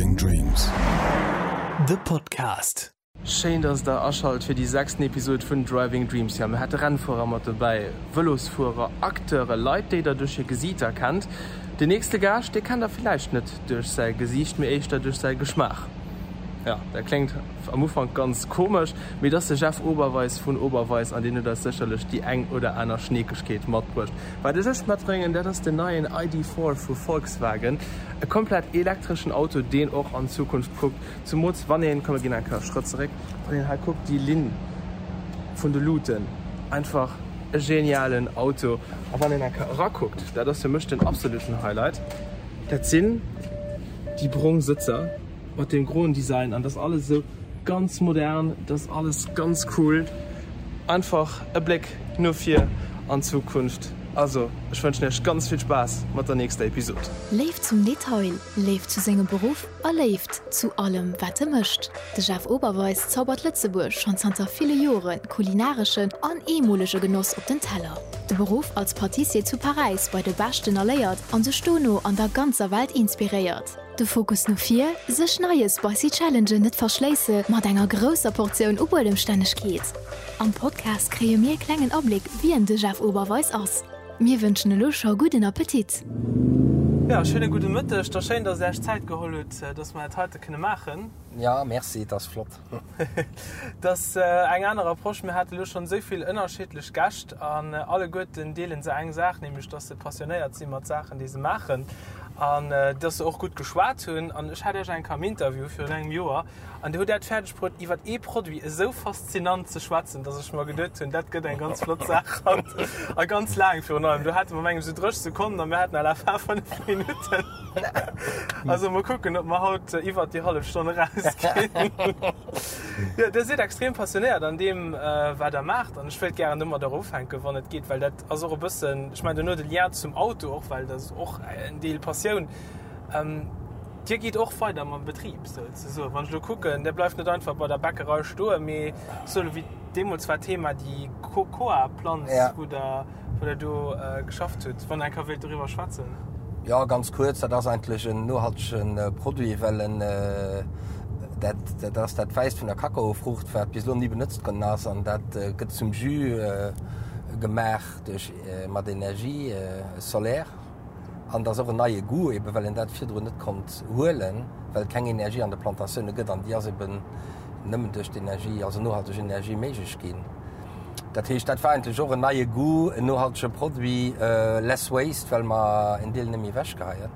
Driving Dreams. De Podcast. Schéin dass der aschalt fir déi sechsten Episode vun Driving Dreams. Jo, mir hate Rennfuerer mat dobäi, Vëlosfuerer, Acteure, Leit déi der duerch hir Gesiiter kennt. Den nächste Gaascht, dee kennt der villäicht net duerch säi Gesiicht, mee éischter duerch säi Geschmaach. Jo, dat kléngt am Ufank ganz komesch, mee et ass de Jeff Oberweis vun Oberweis an deen huet eis sécherlech déi eng oder aner Schneekegkeet matbruecht. Wat ech iech matbréngen, dat ass den neien ID. 4 vu Volkswagen, e komplett elektreschen Auto, deen och an d'Zukunft kuckt. Zumools wann een, komm mir ginn eng Kéier e Schrëtt zeréck, wann een hei kuckt, déi Linn vun de Luuten, einfach e genialen Auto. A wann een eng Kéier erakuckt, dat ass fir mech den absoluten Highlight, dat sinn déi brong Sëtzer mat deem groen Design an dat ass alles esou ganz modern, dat ass alles ganz cool. Einfach e Bléck no vir an d'Zukunft. Also, ech wënschen iech ganz vill Spaass mat der nächster Episod. Léift zum Detail, Léift zu sengem Beruff a Léift zu allem wat e mécht. De Jeff Oberweis zaubert Lëtzebuerg schonn zanter ville Jore kulinareschen an eemolege Genoss op den Teller. De Beruff als Patissier zu Paräis bei de Beschten erléiert an sech dono an der ganzer Welt inspiréiert. De Fokus no vir, sech neie spicy Challengen net verschléisse mat enger grousser Portioun u Buedemstännegkeet. Am Podcast kréie mir e klengen Abléck wien de Jeff Oberweis ass. Mir wënschen elo scho gudden Appetit! Jo, schéine gudde Mëtteg. Da schéin, dass Der Iech Zäit geholl hutt, dass mer dat heite kënne maachen. Jo, merci, et ass flott. Et ass eng aner Approche. Mir hate lo schonn esou vill ënnerschiddlech Gäscht an alleguerten deele se eng Saach, nämlech dass se passionéiert si mat Saachen, déi se maachen an dass se och gutt geschwat hunn. An ech hat Iech eng Kéier am Interview virun engem Joer an Dir hutt dat fäerdeg bruet, iwwer ee Produit esou faszinant ze schwätzen, dass ech mer geduet hunn, dat gëtt eng ganz flott Saach haut a ganz laang virun allem. Do hate mer mengem esou 30 Sekonnen a mir haten à la fin 5 Minutten. Also mol kucken, ob mer haut iwwert déi hallef Stonn erausginn. Jo, Dir sidd extrem passionéiert an deem, wat Der maacht. An ech wéilt gären domadder ufänken, wann et geet, well dat ass och e bëssen, ech mengen, duerno de Lien zum Auto och, well dat ass och en Deel Passioun. Dir gitt och weider mam Betrib souzesoen. Wann ech elo kucken, Dir bleift net einfach bei der Bäckerei stoen, mee sou wéi deemools war d'Thema déi Cocoa-Planz, wou Der wou Der do geschafft hutt, wann Der eng Kéier wéilt doriwwer schwätzen. Jo, ganz kuerz, dat ass eigentlech en nohaltege Produit, well en dat dat ass dat Wäisst vun der Kakaofruucht, wat bis elo ni benotzt ginn ass an dat gëtt zum Jus gemaach duerch mat Energie solaire. An et ass och en neie Goût, ebe well een dat virdrun net konnt huelen, well et keng Energie an de Plantatioune gëtt an déi ass eben nëmmen duerch d'Energie, also nohalteg Energie méiglech ginn. Dat heescht, dat war eigentlech och en neie Goût, en nohaltege Produit, less waste, well mer en Deel net méi ewechgeheien.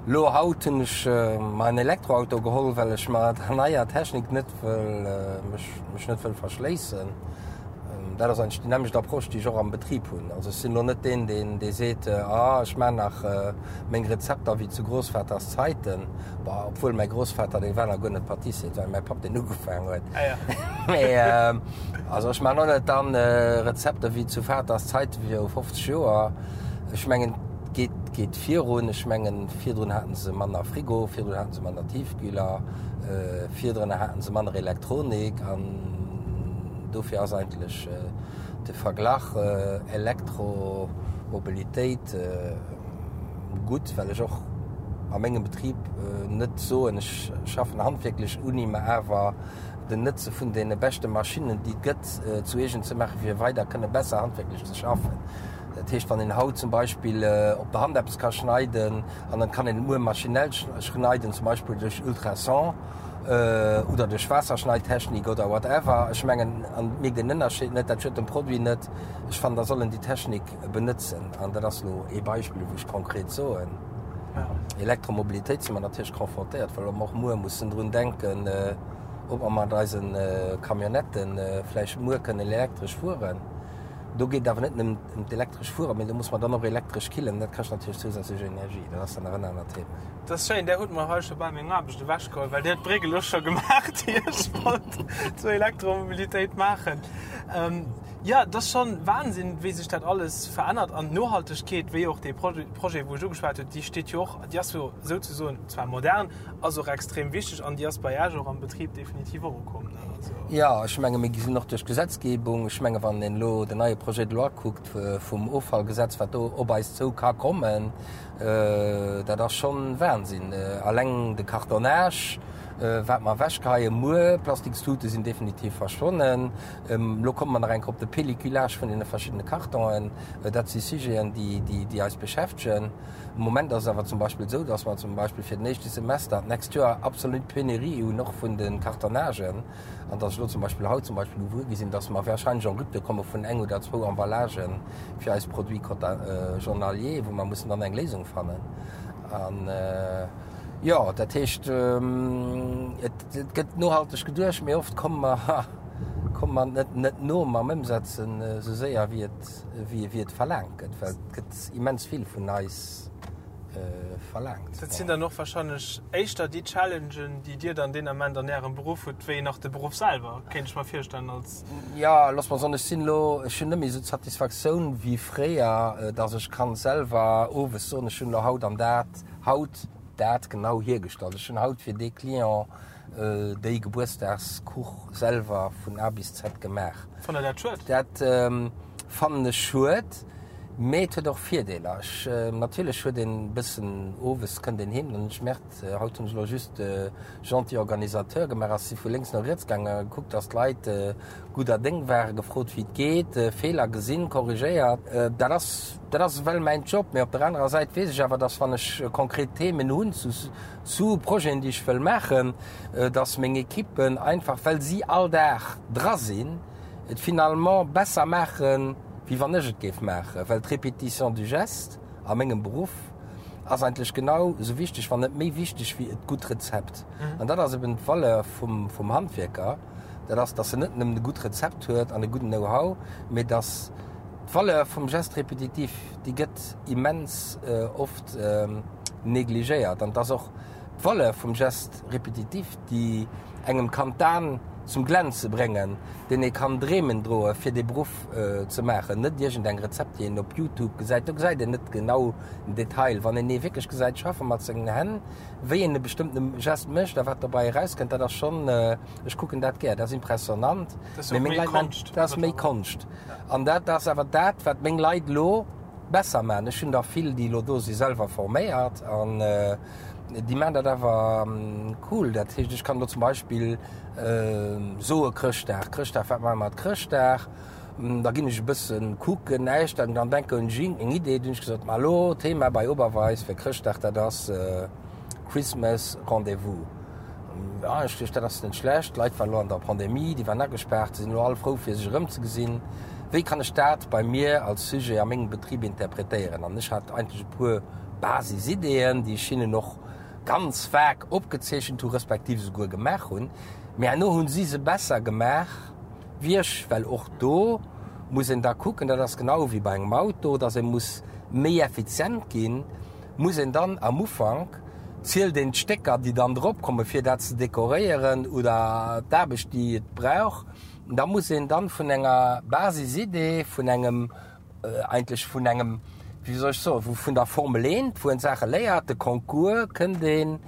Lo haut hunn ech mer en Elektroauto geholl, well ech mer der neier Technik net wëll, mech, mech net wëll verschléissen. Dat ass eigentlech déi nämmlecht Approche, déi ech och am Betrib hunn. Also ech sinn elo net deen, deen, dee seet, ah ech maachen nach meng Rezepter wéi zu Großvaters Zeiten. Bon, obwuel mäi Großvater, dee war nach guer net Patissier, et war mäi Papp, deen ugefaangen huet. Ah ja. Mee also ech maachen och net dann Rezepter wéi zu Vaters Zeiten viru 50 Joer. Ech mengen, et geet, geet virun. Ech mengen, virdrun haten se manner Frigo, virdrun haten se manner Tiefkühler, virdrun haten se manner Elektronik an dofir ass eigentlech de Verglach Elektromobilitéit gutt, well ech och a mengem Betrib net soen, ech schaffen handwierklech uni, mä awer den Nëtze vun deene beschte Maschinnen, déi et gëtt, zu eegen ze maachen, fir weider kënne besser handwierklech ze schaffen. Dat heescht, wann een haut zum Beispill op der Hand eppes ka schneiden an dann kann een et muer maschinell schneiden, zum Beispill duerch Ultrason oder duerch Waasserschneidtechnik oder whatever, ech mengen, an et mierkt een den Ënnerscheed net, dat schuet dem Produit net. Ech fannen, da soll en déi Technik benëtzen. An dat ass elo ee Beispill, wou ech konkret soen, Elektromobilitéit si mer natierlech confrontéiert, well mer och muer mussen drun denken, ob mer mat eise Camionnettë vläicht muer kënnen elektresch fueren. Do geet et awer net nëmmen ëm d'elektresch Fueren, mee do muss mer dann och elektresch killen. Dat kascht natierlech zousätzlech Energie. Dat ass dann nach en anert Thema. Dat ass schéin, Där hutt mer hei scho bal meng Aarbecht ewechgeholl, well Dir hutt d'Bréck elo scho gemaach, déi ech wollt zur Elektromobilitéit maachen. Jo, et ass schonn Wahnsinn, wéi sech dat alles verännert. An d'Nohaltegkeet, wéi och dee Projet, wou ech ugeschwat hunn, déi steet jo och, déi ass jo souzesoen zwar modern, ass och extrem wichteg an déi ass bei Iech och am Betrib definitiv och ukomm. Jo, ech menge mir sinn och duerch d'Gesetzgebung, ech menge wann een elo den neie. Projet de loi kuckt vum Offallgesetz, wat do op eis zou ka kommen, dat ass schonn Wahnsinn. Alleng de Cartonnage, wat mer ewechgeheien muer, Plastikstute sinn definitiv verschwonnen. Elo komme mer nach eng Kéier op de Pelliculage vun deene verschiddene Kartonen. Dat si Sujeten, déi eis beschäftegen. Am Moment ass et awer zum Beispill esou, dass mer zum Beispill fir den éischte Semester d'nächst Joer absolut Penurie hunn, och vun de Cartonnagen, an dass ech elo zum Beispill haut zum Beispill gewuer gi sinn, dass mer wahrscheinlech en rupture komme vun eng oder zwou Emballagen fir eis Produits journaliers, wou mer mussen dann eng Léisung fannen. An, jo, dat heescht, et gëtt nohalteg geduecht, mee oft komme mer, komme mer net, net no mam Ëmsetzen esou séier, wéi et, wéi et verlaangt gëtt, well et gëtt immens vill vun eis verlaangt. Dat sinn dann och wahrscheinlech éischter déi Challengen, déi Dir dann deen Ament an Ärem Beruff hutt, wéi nach de Beruff selwer, kéint ech mer virstellen als. Jo, looss mer soen, ech sinn elo, ech hunn net méi esou d'Satisfaktioun wéi fréier, dass ech kann selwer owes soen, ech hunn elo haut an dat, haut dat genau hiergestallt, ech hunn haut fir dee Client déi Gebuertsdagskuch selwer vun A bis Z gemaach. Fannt Der dat schued? Dat fannen ech schued, mee et huet och Virdeeler. Ech, natierlech huet een e bëssen, owes kënnt een heem, dann hunn ech gemerkt, haut hunn ech elo just de gentil Organisateur gemaach, ass si vu lénks no riets gaangen a gekuckt, dass d'Leit gudder Déng waren, gefrot wéi et geet, Feeler gesinn, korrigéiert. Dat ass, dat ass ewell mäin Job. Mee op der anerer Säit weess ech awer, dass wann ech konkret Themen hunn zu, zu Projeten, déi ech wëll maachen, dass meng Equippen einfach, well si all Dag dra sinn, et finalement besser maachen, wéi wann ech et géif maachen. Well d'Répétition du geste a mengem Beruff ass eigentlech genau esou wichteg, wann net méi wichteg, wéi et gutt Rezept. An dat ass eben d'Valeur vum, vum Handwierker, dat ass, dass en net nëmmen e gutt Rezept huet an e gudden Know-how, mee dass d'Valeur vum Geste répétitif, déi gëtt immens oft negligéiert. An et ass och d'Valeur vum Geste répétitif, déi engem kann d'Aen zum Glänze bréngen, deen ee kann Dreemen droe fir dee Beruff ze maachen. Net iergend eng Rezept, déi een op Youtube gesäit. Do gesäit een net genau den Detail. Wann een ee wierklech gesäit schaffe mat sengen Hänn, wéi een e bestëmmtene Geste mécht a wat dobäi erauskënnt, dat ass schonn, ech kucken dat gär, dat ass impressionnant. Dat ass och méi Konscht. Dat ass méi Konscht. An dat ass awer dat, wat meng Leit elo besser maachen. Ech hunn der vill, déi elo do si selwer forméiert an déi maachen dat awer cool. Dat heescht, ech kann elo zum Beispill soe Chrëschtdag, Chrëschtdag, wat maache mer mat Chrëschtdag? Da ginn ech e bësse kucken, näischt, an dann denken ech eng Idee, dunn hunn ech gesot, ma elo Thema bei Oberweis fir Chrëschtdag, dat ass Christmas Rendez-vous. Ja, ech duecht, dat ass net schlecht. D'Leit waren elo an der Pandemie, déi waren agespaart, se sinn elo all frou fir sech erëmzegesinn. Wéi kann ech dat bei mir als Sujet a mengem Betrib interpretéieren? An ech hat eigentlech e puer Basisideeën, déi ech hinnen och ganz vag opgezeechent hu respektiv esouguer gemaach hunn. Mee herno hu si se besser gemaach wéi ech, well och do muss een da kucken, dat ass genau wéi bei engem Auto, dass ee muss méi effizient ginn, muss een dann am Ufank, zielt een d'Stécker, déi dann drop kommen, fir dat ze dekoréieren oder d'Aarbecht, déi et brauch. Da muss een dann vun enger Basisidee, vun engem, eigentlech vun engem, wéi soll ech soen, vun der Formel eent, wou een d'Saache léiert, de Concours, kënnt een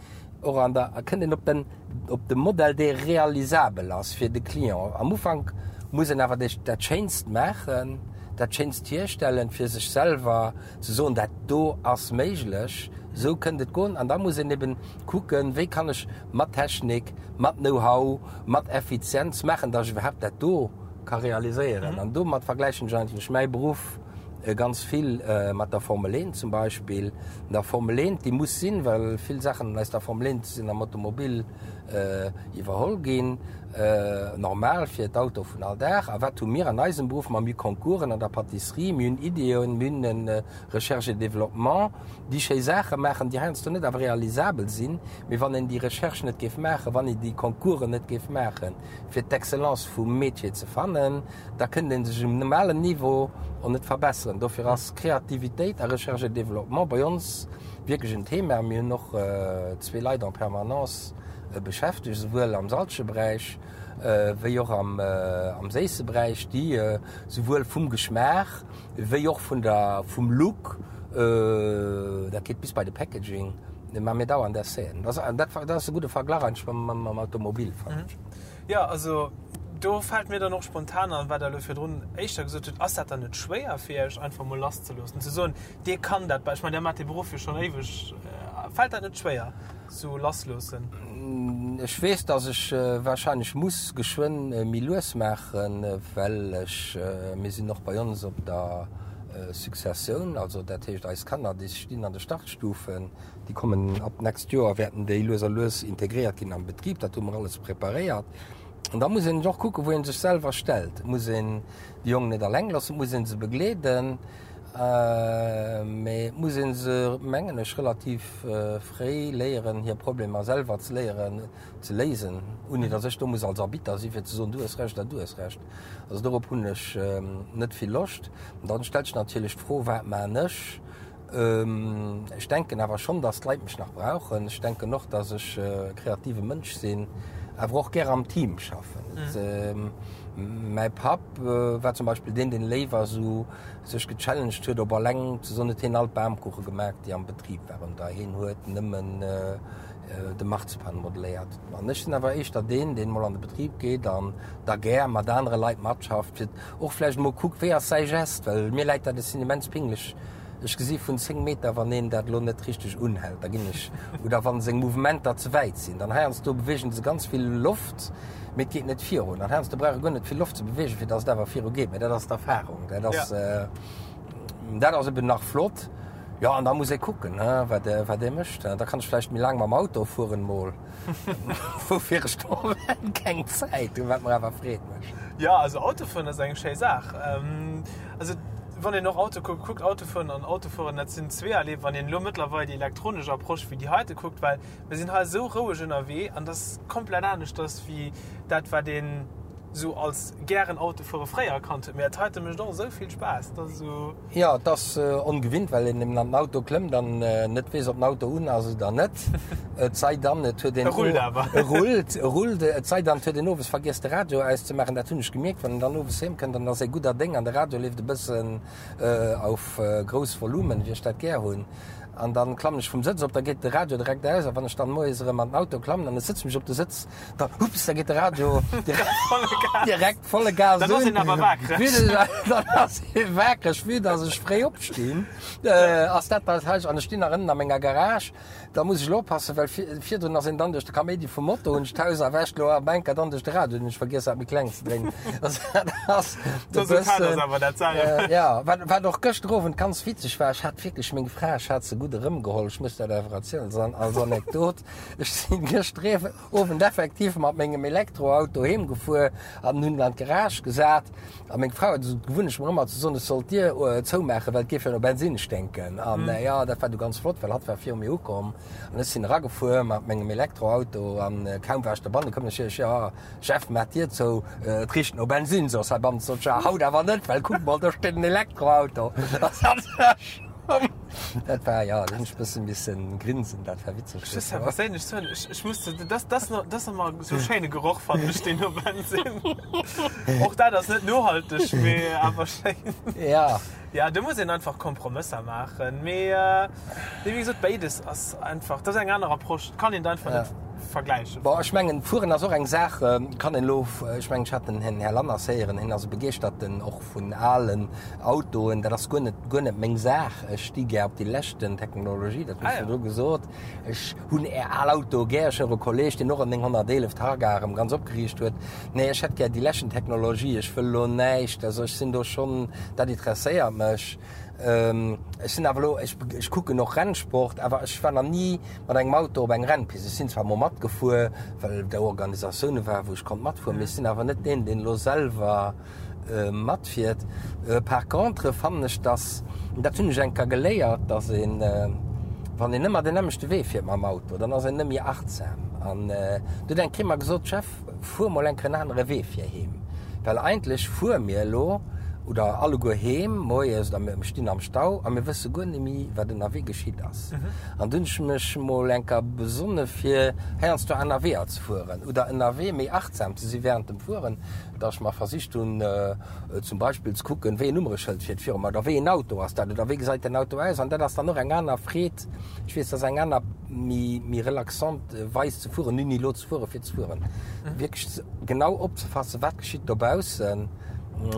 och an der, kënnt een op den, op de Modell, dee realisabel ass fir de Client. Am Ufank muss een awer dat Schéinst maachen, dat Schéinst hierstellen, fir sech selwer ze soen, dat do ass méiglech, esou kënnt et goen. An da muss een eben kucken, wéi kann ech mat Technik, mat Know-how, mat Effizienz maachen, datt ech iwwerhaapt dat do ka realiséieren. An domat vergläichen ech eigentlech mäi Beruff ganz vill mat der Formel 1 zum Beispill. An der Formel 1, déi muss sinn, well vill Saachen aus der Formel 1 sinn am Automobil iwwerholl ginn, normal fir d'Auto vun all Dag. A wat hu mir an eisem Beruff? Ma mir hu Concoursen an der Pâtisserie, mir hunn Ideeën, mir hunn e Recherche et Développement, déi schéi Saache maachen, déi heiansdo net awer realisabel sinn. Mee wann een déi Recherche net géif maachen, wann een déi Concoursen net géif maachen, fir d'Excellence vum Métier ze fannen, da kënnt ee sech um normalen Niveau och net verbesseren. Dofir ass Kreativitéit a Recherche et Développement bei ons wierklech en Thema. Mir hunn och zwee Leit en permanence beschäftegt, esouwuel am salzege Beräich wéi och am séisse Beräich, déi esouwuel vum Geschmaach wéi och vun der, vum Look, dat geet bis bei de Packaging, mä mir dauernd Essaiën. Dat ass e gudde Verglach eigentlech mam Automobil, fannen ech. Jo, also. Do fält mir dann och spontan an, wat Der elo virdrun éischter gesot hutt, Ass dat dann net schwéier fir Iech, einfach emol lasszeloossen, ze soen, Dir kann dat, ech mengen, Der maacht dee Beruff jo schonn éiweg, fält dat net schwéier, sou lassloossen? Ech weess, dass ech wahrscheinlech muss geschwënn méi lues maachen, well ech, mir sinn och bei ons op der Successioun, also dat heescht eis Kanner, déi stinn an de Startstufen, déi kommen ab d'nächst Joer, wäerten déi lues a lues integréiert ginn am Betrib, dat hu mer alles preparéiert. An da muss een och kucken, wou ee sech selwer stellt. Et muss een déi Jongen net alleng loossen, et muss ee se begleeden, mee et muss ee se, mengen ech, relativ fréi léieren, hir Problemer selwer ze léieren ze léisen, ouni datt ech do muss als Arbitter si fir ze soen, du hues Recht oder du hues Recht. Also dorop hunn ech net vill Loscht. An dann stellt sech natierlech d'Fro, Wat maan ech? Ech denken awer schonn, dass d'Leit mech nach brauchen. Ech denken och, dass ech e kreative Mënsch sinn, awer och gär am Team schaffen. Mäi Papp war zum Beispill deen, deen léiwer esou sech gechallenged huet, op alleng ze soen, huet hien all d'Bamkuche gemaach, déi am Betrib waren, oder hien huet nëmmen de Marzipan modeléiert. An ech sinn awer éischter deen, deen mol an de Betrib geet an da gär mat anere Leit matschafft, fir och vläicht emol kuckt, wéi ass säi Gest, well mir läit dat, ech sinn immens pinglech, ech gesi vun 10 Meter, wann een dat elo net richteg unhält, da ginn ech, oder wa seng Mouvementer ze wäit sinn, dann heiansdo beweegen se ganz vill Loft, mee et geet net virun. An heiansdo brauch e guer net vill Loft ze beweegen, fir datt et awer viru geet. Mee dat ass d'Erfahrung, dat ass, dat ass eben nach flott. Jo, an da muss ee kucken, wat wat ee mécht. Da kann ech vläicht méi laang mam Auto fueren mol, woufir ech de Moment keng Zäit hunn, wat mer awer Freed mécht. Jo, also Autofueren ass eng schéi Saach. Also wann een och Auto kuckt, kuckt Autofueren an Autofueren, dat sinn zweeërlee, wann een elo mëttlerweil déi elektronesch Approche wéi déi heite kuckt, well mir sinn hei esou roueg ënnerwee an dat ass komplett aneschters wéi dat wat een esou als gären Autofuere fréier kannt huet. Mee dat heite mécht och esou vill Spaass, dat ass esou. Jo, et ass ongewinnt, well een eben an den Auto klëmmt an net weess, ob den Auto un ass oder net. Et sei dann, et huet een. E rullt awer. E rullt, e rullt. Et sei dann, et huet een owes vergiess, de Radio auszemaachen. Dat hunn ech gemierkt, wann een dann owes heem kënnt, dann ass ee gudder Déng an de Radio leeft e bëssen auf grouss Volumen, wéi ech dat gär hunn. An dann klammen ech vum Sëtz op, da geet de Radio direkt aus. A wann ech dann moies erëm an den Auto klammen an ech sëtze mech op de Sëtz, da, hups, da geet de Radio direkt volle Gas un. Dann ass een awer waakreg. Dann ass ee waakreg, vue dass ech fréi opstinn, ass dat dat hei. An ech stinn nach ënnen a menger Garage. Da muss ech elo oppassen, well virdrun ass een dann duerch de Kaméidi vum Moto, hunn ech d'Haus erwächt, elo am Enker dann duerch de Radio, hunn ech vergiess dat méi kleng ze dréinen. Also dat ass e bëssen, jo, wat, wat och gëschter Owend ganz witzeg war, ech hat wierklech meng Fra, ech hat se gutt erëmgeholl, ech muss dat awer erzielen als Anekdot, ech sinn gëschter Owend effektiv mat mengem Elektroauto heem gefuer an hunn en an d'Garage gesat. A meng Fra huet esou d'Gewunnecht mer ëmmer ze soen, ech soll d'Dier zoumaachen, well et géif jo no Bensinn sténken. An jo, dat war du ganz flott, well hatt war viru mir ukomm an ech sinn eragefuer mat mengem Elektroauto an kaum war ech dobannen, koum ech ech, jo Jeff, maach d'Dier zou, et richt no Bensinn. Soss heibannen sot ech, jo haut awer net, well kuck mol, do steet en Elektroauto. Dat war, jo, do hunn ech e bësse missen grinsen, dat war witzeg. Ech muss awer perséinlech soen, ech, ech muss, dat, dat ass nach, dat ass nach mol esou schéine Geroch, fannen ech, deen no Bensinn. Och dat ass net nohalteg, mee awer schéin. Ja. Ja, do muss een einfach Kompromësser maachen, mee, nee, wéi gesot, béides ass einfach, dat ass eng aner Approche, dat kann een einfach net vergläichen. Bon, ech mengen, Fueren ass och eng Saach, kann een elo, ech mengen, ech hat den Här Lanners héieren, hien ass e Begeeschterten och vun alen Autoen, dat ass guer net, guer net meng Saach. Ech sti gär op déi leschten Technologie, dat hunn ech virdru gesot. Ech hunn är al Autoe gär. Ech hunn och e Kolleeg, deen och en 911 Targa erëm ganz opgeriicht huet. Nee, ech hätt gär déi leschten Technologie. Ech wëll elo näischt, also ech sinn do schonn, dat interesséiert mech. Ech sinn awer elo, ech, ech kucken och Rennsport, awer ech war nach ni mat engem Auto op eng Rennpist. Ech sinn zwar mol matgefuer, well do Organisatioune waren, wou ech konnt matfueren, mee ech sinn awer net deen, deen elo selwer matfiert. Par contre fannen ech, dass, dat hunn ech eng Kéier geléiert, dass een, wann een ëmmer den nämmlechte Wee fiert mam Auto, dann ass een net méi achtsam. An du huet eng Kéier mer gesot, Jeff, fuer mol eng Kéier en anere Wee fir heem, well eigentlech fuere mir elo. Oder alleguer heem moies oder mir stinn am Stau a mir wësse guer net méi, wat ënnerwee geschitt ass. An dunn hunn ech mech mol eng Kéier besonne fir heiansdo aner Weeër ze fueren oder ënnerwee méi achtsam ze si wärend dem Fueren, dass ech mer versicht hunn zum Beispill ze kucken, wéi en Nummereschëld fiert viru mer oder wéi en Auto ass dat oder wéi gesäit den Auto aus. An dat ass dann och eng aner Freed, ech weess, dat ass eng aner méi méi relaxant Weis ze fueren, ni elo ze fuere fir ze fueren, wierklech genau opzefassen, wat geschitt dobaussen.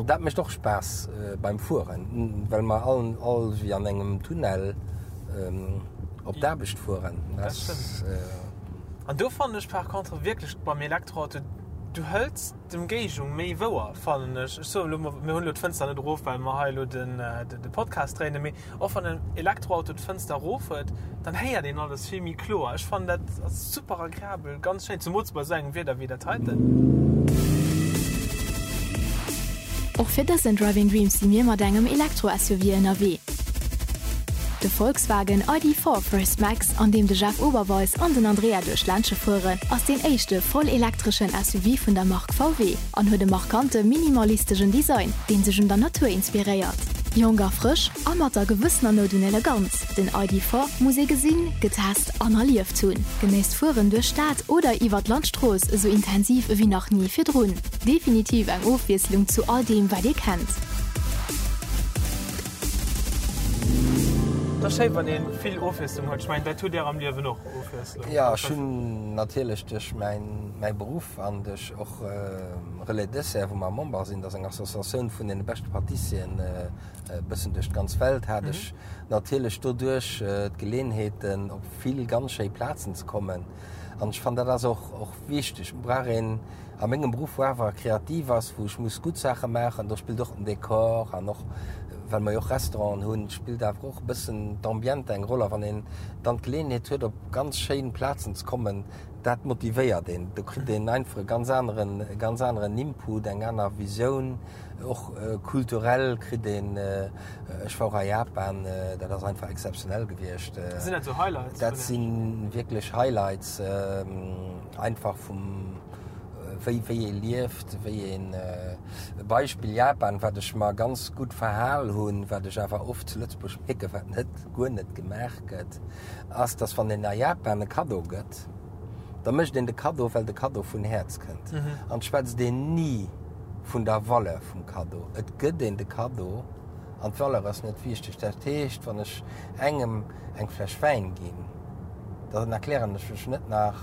Dat mécht och Spaass beim Fueren, well mer all all wéi an engem Tunnel op d'Aarbecht fueren. Dat stëmmt. An do fannen ech par contre wierklech beim Elektroauto, du hëls d'Emgéigend méi wouer, fannen ech. Ech soen elo mol, mir hunn elo d'Fënster net erof, well mer hei elo den de Podcast dréinen, mee Och wann en Elektroauto d'Fënster erof huet, dann héiert een alles vill méi kloer. Ech fannen dat ass super agreabel, ganz schéin, zumools bei esou engem Wieder wéi dat heiten. Och fir dësen Driving Dreams si mir mat engem Elektro-SUV ënnerwee. De Volkswagen ID. 4 First Max, an deem de Jeff Oberweis an den Andrea duerch d'Ländche fueren, ass deen éischte voll elektreschen SUV vun der Mark VW. An huet e markante minimalistegen Design, deen sech un der Natur inspiréiert. Jonk a frësch a mat der gewëssener Nout un Eleganz, den ID. 4 muss ee gesinn, getest an erlieft hunn. Genéisst d'Fueren duerch d'Stad oder iwwer d'Landstrooss esou intensiv ewéi nach ni virdrun. Definitiv eng Ofwiesslung zu all deem wat ee kennt. Et ass schéi wann ee vill Ofwiesslung huet. Ech mengen dat hutt Dir am Liewen och, Ofwiesslung. Jo, ech hunn natierlech duerch mäi Beruff an duerch och Relais Dessert, wou mer Member sinn, dat ass eng Associatioun vun deene beschte Patissieren e bëssen duerch d'ganz Welt, hat ech natierlech doduerch d'Geleenheeten, op vill ganz schéi Plazen ze kommen. An ech fannen, dat ass och, och wichteg. Et brauch een a mengem Beruff, wou awer kreativ ass, wou ech muss gutt Saache maachen, do spillt och den Dekor an och, well mer jo och Restauranten hunn, spillt awer och e bëssen d'Ambiente eng Roll. A wann een dann d'Geleenheet huet, op ganz schéin Plazen ze kommen, Dat motivéiert een. Do kritt een einfach e ganz aneren, e ganz aneren Input, eng aner Visioun, och kulturell kritt een, ech war och a Japan, dat ass einfach exzeptionell gewiescht. Sinn dat sou Highlights? Dat si wierklech Highlights, einfach vum, wéi, wéi ee lieft, wéi een, e Beispill Japan, wat ech mer ganz gutt verhal hunn, wat ech awer oft zu Lëtzebuerg mierken, wat net, guer net gemaach gëtt. ass, dass wann een a Japan e Kaddo gëtt, da mécht een de Kaddo, well de Kaddo vun Häerz kënnt. An et schwätzt een ni vun der Valeur vum Kaddo. Et gëtt een de Kaddo an d'Valeur ass net wichteg. Dat heescht, wann ech engem eng Fläsch Wäin ginn, dann erklären ech mech net nach,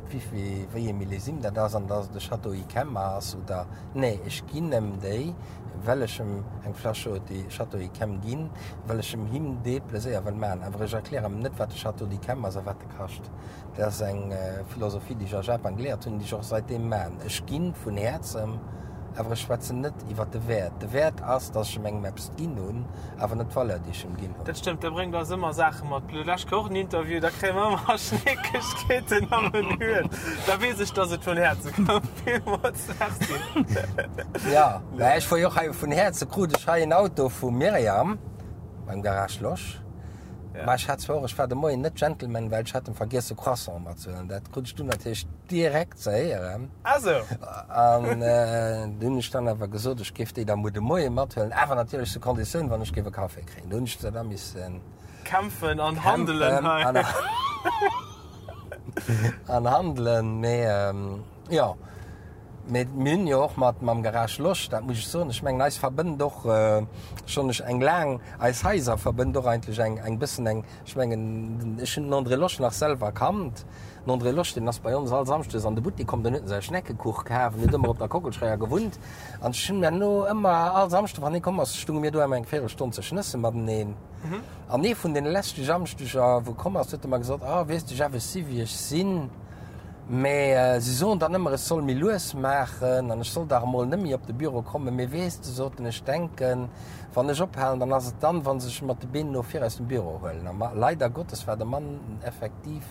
wéi wéi ee Millésime dat ass an dass et e Château Yquem ass oder, nee, ech ginn em déi, well ech em eng Fläsch Château Yquem ginn, well ech em him dee Pleséier wëll maachen. Awer ech erklären em net, wat de Château d'Yquem ass a wat e kascht. Dat ass eng Philosophie, déi ech a Japan geléiert hunn, déi ech och saitdeem maachen. Ech gi vun Häerzem, awer ech schwätzen net iwwer de Wäert. De Wäert ass, dass ech em engem eppes ginn hunn, awer net d'Valeur, déi ech em ginn hunn. Dat stëmmt, dat bréngt eis ëmmer Saache mat. D'lescht Woch en Interview, da kréie mer ëmmer Schneekegkeeten am Menü. Da weess ech, dass et vun Häerze koum. Villmools Merci. Ja, mä ech fuer jo och hei vun Häerze krut ech hei en Auto vum Myriam beim Garage Losch. Ja. Mä ech hat zwar och, ech war de Moien net Gentleman, well ech hat em vergiess e Croissant matzehuelen. Dat krut ech dunn natierlech direkt ze héieren. Ah sou. An du hunn ech dann awer gesot, ech géif déi da muer de Moie mathuelen, awer natierlech zu Konditioun, wann ech géif e Café kréien. Du hunn ech da missen. Kämpfen an handelen hei. An handelen, mee jo. Mee mir hunn jo och mat mam Garage Losch, dat muss ech soen, ech mengen eis verbënnt och schonn ech eng laang, eis Haiser verbënnt och eigentlech eng eng bëssen eng, ech mengen ech hunn den André Losch nach selwer kannt. Den André Losch, deen ass bei ons all Samschdes an de Buttek komm, den huet en säi Schneckekuch kaf, en huet ëmmer op der Kockelscheier gewunnt an ech hunn herno ëmmer all Samschde wann hie komm ass, stunge mir do ëmmer eng Véirelstonn ze schnësse mateneen. An ee vun deene leschte Samschdeger wou komm ass, huet e mer gesot, ah weess de Jeff, ech si wéi ech sinn. Mä si soen dann ëmmer, ech soll méi lues maachen an ech soll dach emol net méi op de Büro kommen. Mee weess de, sot en, ech denken, wann ech ophalen, dann ass et dann, wa se sech mat de Been no vir aus dem Büro huelen. A leider Gottes war de Mann effektiv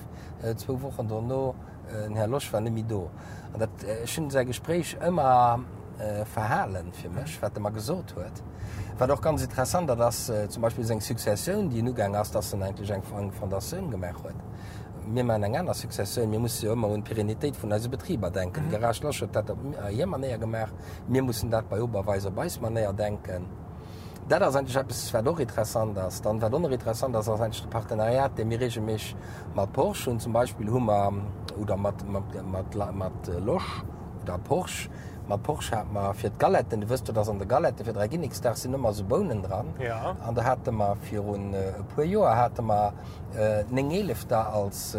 zwou Wochen dono, den Här Losch war net méi do. An dat, ech hunn säi Gespréich ëmmer verhalen fir mech, wat e mer gesot huet. Wat och ganz interessant, dat ass zum Beispill seng Successioun, déi en ugaang ass, dass en eigentlech eng Fondatioun gemaach huet. Mir maachen eng aner Successioun. Mir musse jo ëmmer un d'Perennitéit vun eise Betriber denken. De Garage Losch huet dat op hir Manéier gemaach. Mir mussen dat bei Oberweis op eis Manéier denken. Dat ass eigentlech eppes, wat och interessant ass. Dann, wat och nach interessant ass, ass eigentlech de Partenariat, dee mir regelméisseg mat Porsche hunn. Zum Beispill hu mer, oder mat, mat, mat, mat Losch oder Porsche, mat Porsche hate mer fir d'Galetten, du wësst jo, dass an de Galette fir Dräiginneksdag sinn ëmmer esou Bounen dran. An do hate mer virun e puer Joer hate mer Néngeelefter als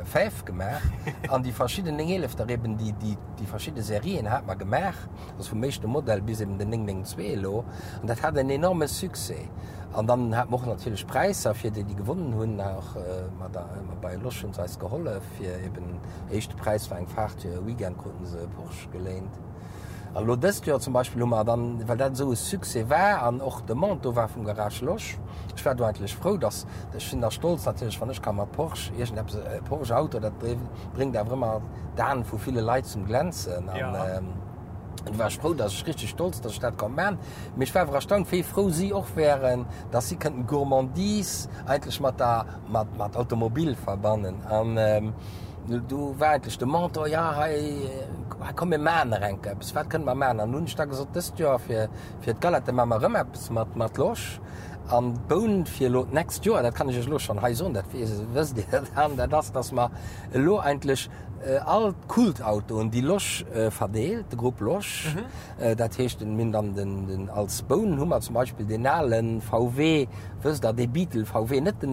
Fäf gemaach. An déi verschidden Néngeelefter eben, déi, déi, déi verschidde Serien hate mer gemaach. Also vum éischte Modell bis eben den 992 elo. An dat hat en enorme Succès. An dann hate mer och natierlech Präisser fir déi, déi gewonnen hunn. Och mat der, bei Losch hu se eis gehollef fir eben, éischte Präis war eng Faart fir e Weekend, kruten se e Porsche geléint. An elo dëst Joer zum Beispill hu mer dann, well dat esou e Succès war an och Demande do war vum Garage Losch, ech war do eigentlech frou, dass, ech sinn da stolz natierlech, wann ech ka mat Porsche iergendeppes, e Porsche Auto, dat bréngt awer ëmmer d'Aen vu ville Leit zum Glänzen. An du war ech frou, dass ech richteg stolz, dass ech dat konnt man. Mee ech war awer erstaunt, wéi frou si och wären, dass si kënnten Gourmandise eigentlech mat der, mat, mat Automobil verbannen. An du war eigentlech de Mentor, ja hei, komm mir man nach eng Kéier eppes, wat kënne mer man? An hunn ech da gesot, dëst Joer fir, fir d'Galette man mer erëm eppes mat, mat Losch. An d'Boun fir elo d'nächst Joer, dat kann ech iech elo schonn hei soen, dat wësst Dir dann, dat ass, dass mer elo eigentlech all d'Kultautoen, déi Losch verdeelt, de Grupp Losch, dat heescht, mir hunn dann den, als Boun hu mer zum Beispill deen ale VW, wësst Der, dee Beetle VW, net den,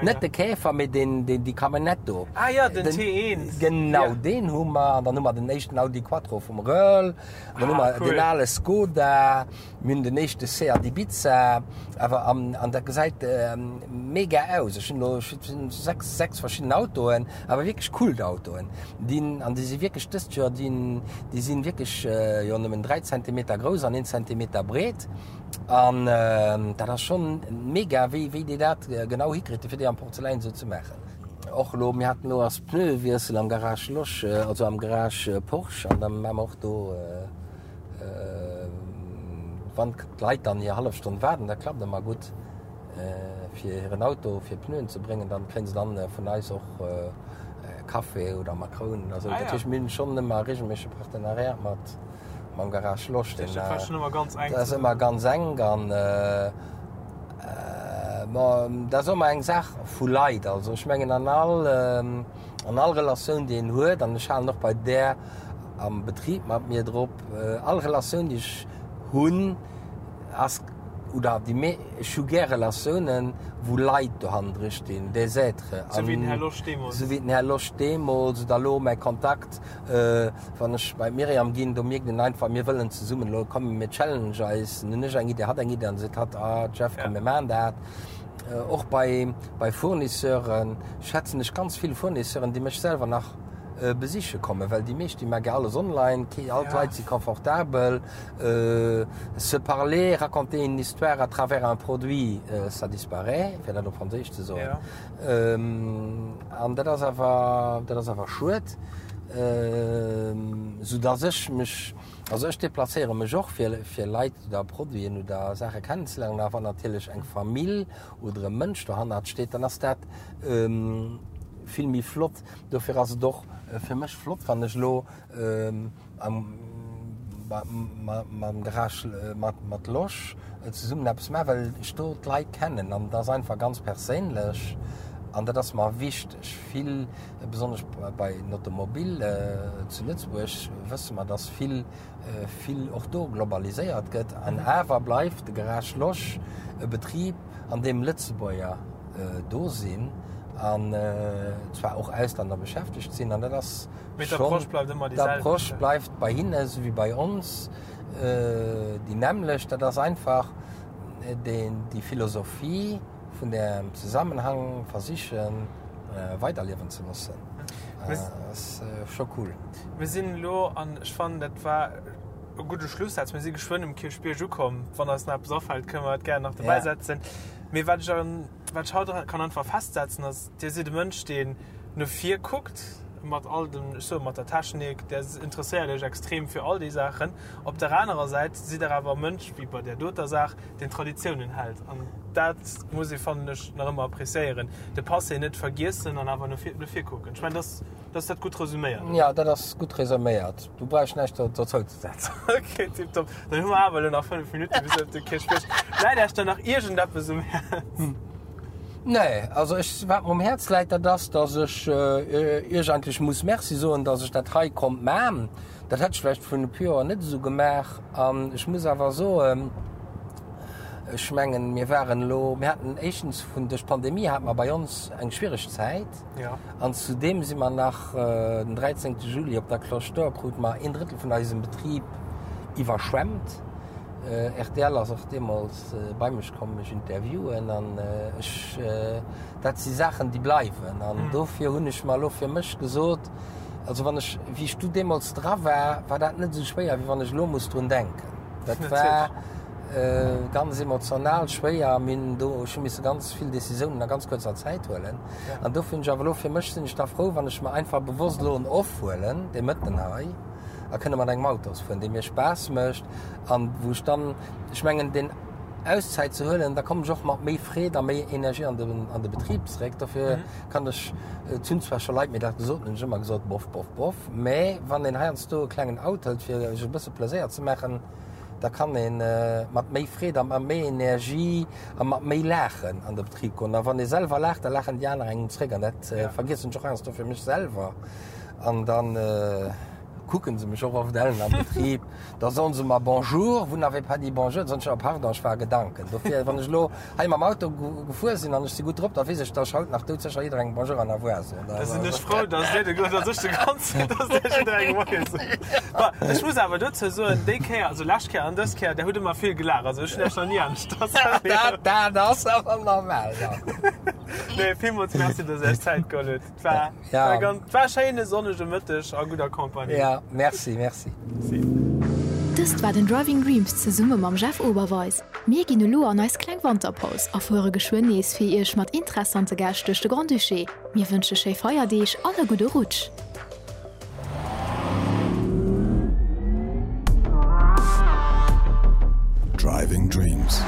net de Käfer, mee deen, deen, déi Camionnette do. Ah jo, den T1. Genau, deen hu mer. An dann hu mer den éischten Audi Quattro vum Röhrl. Dann hu mer deen ale Skoda. Mir hunn den éischte Seat Ibiza, awer an, an dat gesäit mega aus. Ech hunn elo 6, 6 verschidden Autoen, awer wierklech Kultautoen. Déi, an déi si wierklech dëst Joer, déi, déi sinn wierklech jo nëmmen 3 Zentimeter grouss an 1 Zentimeter breet. An dat ass schonn mega, wéi, wéi déi dat genau hikritt, fir déi am Porzeläin esou ze maachen. Och elo, mir haten elo ass Pneuewiessel am Garage Losch, also am Garage Porsche, an da maache mer och do, Wann d'Leit dann hir hallef Stonn waarden, dat klappt ëmmer gutt, fir hiren Auto fir Pneuen ze bréngen, dann kréien se dann vun eis och Café oder Makrounen oder sou. Dat heescht, mir hunn schonn ëmmer e reegelméissege Partenariat mat mam Garage Losch. Dat war schonn ëmmer ganz enk. Dat ass ëmmer ganz enk an bon, dat ass och ëmmer eng Saach vu Leit. Also ech mengen an all an all Relatioun déi een huet, an ech halen och bei där am Betrib mat mir drop, all Relatioun déi ech hunn ass, oder déi mé, ech hu gär Relatiounen wou Leit dohannendru stinn, des êtres. Sou wéi den Här Losch deemools. Sou wéi den Här Losch deemools oder elo mäi Kontakt, wann ech bei d'Myriam ginn, do mierkt een einfach, mir wëllen zesummen elo, komm mir challenge eis, dann hunn ech eng Idee, hatt eng Idee an da seet hatt, ah Jeff, komm mir maachen dat. Och bei bei Fournisseuren schätzen ech ganz vill Fournisseuren, déi mech selwer nach besiche kommen, well déi meescht déi maache alles online, all d'Leit si confortabel, se parler, raconter une histoire à travers un produit, ça disparaît, fir dat op Franséisch ze soen. An dat ass awer, dat ass awer schued, soudass ech mech, also ech deplacéiere mech och fir, fir Leit oder Produiten oder Saache kennenzeléieren, awer wann natierlech eng Famill oder e Mënsch dohannert steet, dann ass dat vill méi flott. Dofir ass et och fir mech flott, wann ech elo mam Garage mat Losch zesummen eppes maachen, well ech do d'Leit kennen an et ass einfach ganz perséinlech an dat ass mer wichteg. Vill, besonnesch bei den Automobile zu Lëtzebuerg wësse mer, dass vill, vill och do globaliséiert gëtt an awer bleift de Garage Losch e Betrib, an deem Lëtzebuerger do sinn an zwar och Auslänner beschäftegt sinn an dat ass schonn, d'Approche bleift bei hinne esou wéi bei ons déi nämmlecht. Dat ass einfach déi Philosophie vun dem Zesammenhang versichen weiderliewen ze loossen. Dat ass scho cool. Mir sinn elo, an ech fannen dat war e gudde Schlussaz, mir si geschwënn um Kierchbierg ukomm. Wann eis nach eppes afält, kënne mer dat gären nach dobäi setzen. Mee wat ech an, wat ech haut kann einfach festsetzen, ass, Dir sidd e Mënsch, deen no vir kuckt. mat all dem, ech soe mat der Technik, Der interesséiert Iech extrem fir all déi Saachen. Op der anerer Säit sidd Der awer e Mënsch, wéi bei där doter Saach, deen Traditiounen hält. An dat muss ee, fannen ech, nach ëmmer appréciéieren. De Passé net vergiessen an awer no vir, no vir kucken. Ech mengen, dass, dass dat gutt resuméiert, oder? Jo, dat ass gutt resuméiert. Du brauchs näischt dozou ze setzen. Ok, tiptop. Dann hu mer awer elo nach 5 Minutte bis op de Kierchbierg. Läit Iech dann nach iergendeppes um Häerz? Nee, also ech, wat mer um Häerz läit, dat ass, dass ech Iech eigentlech muss Merci soen, dass ech dat hei konnt man. Dat hätt ech vläicht vrun e puer Joer net esou gemaach. An ech muss awer soen, ech mengen, mir waren elo, mir haten éischtens vun, duerch d'Pandemie hate mer bei ons eng schwiereg Zäit. An zudeem si mer nach den 13. Juli op der Cloche d'Or krute mer een Drëttel vun eisem Betrib iwwerschwemmt. Rtl ass och deemools bei mech komm mech interviewen an ech, dat si Saachen déi bleiwen an dofir hunn ech mer elo fir mech gesot, also wann ech, wéi ech du deemools dra war, war dat net esou schwéier wéi wann ech elo muss drun denken. Dat war ganz emotional schwéier, mir hunn do, ech hu misse ganz vill Decisiounen a ganz kuerzer Zäit huelen an dofir hunn ech awer elo fir mech, sinn ech da frou wann ech mer einfach bewosst elo en Off huelen, dee Mëtten hei. a kënne mat engem Autos fueren, dee mir Spaass mécht an wou ech dann, ech mengen deen Auszäit ze huelen, da kommen ech och mat méi Freed a méi Energie an de, an de Betrib zeréck. Dofir kann ech, et hunn zwar scho Leit mir dat gesot, hunn ech ëmmer gesot, bof, bof, bof, mä wann een heiansdo e klengen Out hëlt fir sech e bësse Pleséier ze maachen, da kann ee mat méi Freed a mat méi Energie a mat méi Laachen an de Betrib goen. A wann ee selwer laacht, da laachen déi aner engem zeréck an dat vergiessen ech och heiansdo fir mech selwer. An dann kucken se mech och oft ellen am Betrib. Da soen se mer Bonjour, vous n'avez pas dit bonjour. Da soen ech, oh pardon, ech war a Gedanken. Dofir, wann ech elo hei mam Auto gefuer sinn an ech si gutt drop, da weess ech, dass ech haut nach doudsécher jidderengem Bonjour an Au revoir soen. Da sinn ech frou, dass dir de, dass ech de Grond sinn, dass dir jidderengem Moie sot. Bon, ech muss awer dozou soen, déi Kéier, also lescht Kéier an dës Kéier, der hutt ëmmer vill gelaacht. Also ech hunn Iech nach ni aneschters erlieft. Dat, dat ass awer normal, jo. Nee, villmools Merci, dass Dir Iech Zäit geholl hutt. Et war. Ja. War ganz, war schéine sonnege Mëtteg a gudder Compagnie. Ja, merci, merci. Merci. Dëst war den Driving Dreams zesumme mam Jeff Oberweis. Mir ginn elo an eis kleng Wanterpaus a fuere geschwënn nees fir Iech mat interessante Gäscht duerch de Grand-Duché. Mir wënsche schéi Feierdeeg an e gudde Rutsch! Driving Dreams,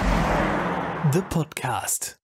de Podcast.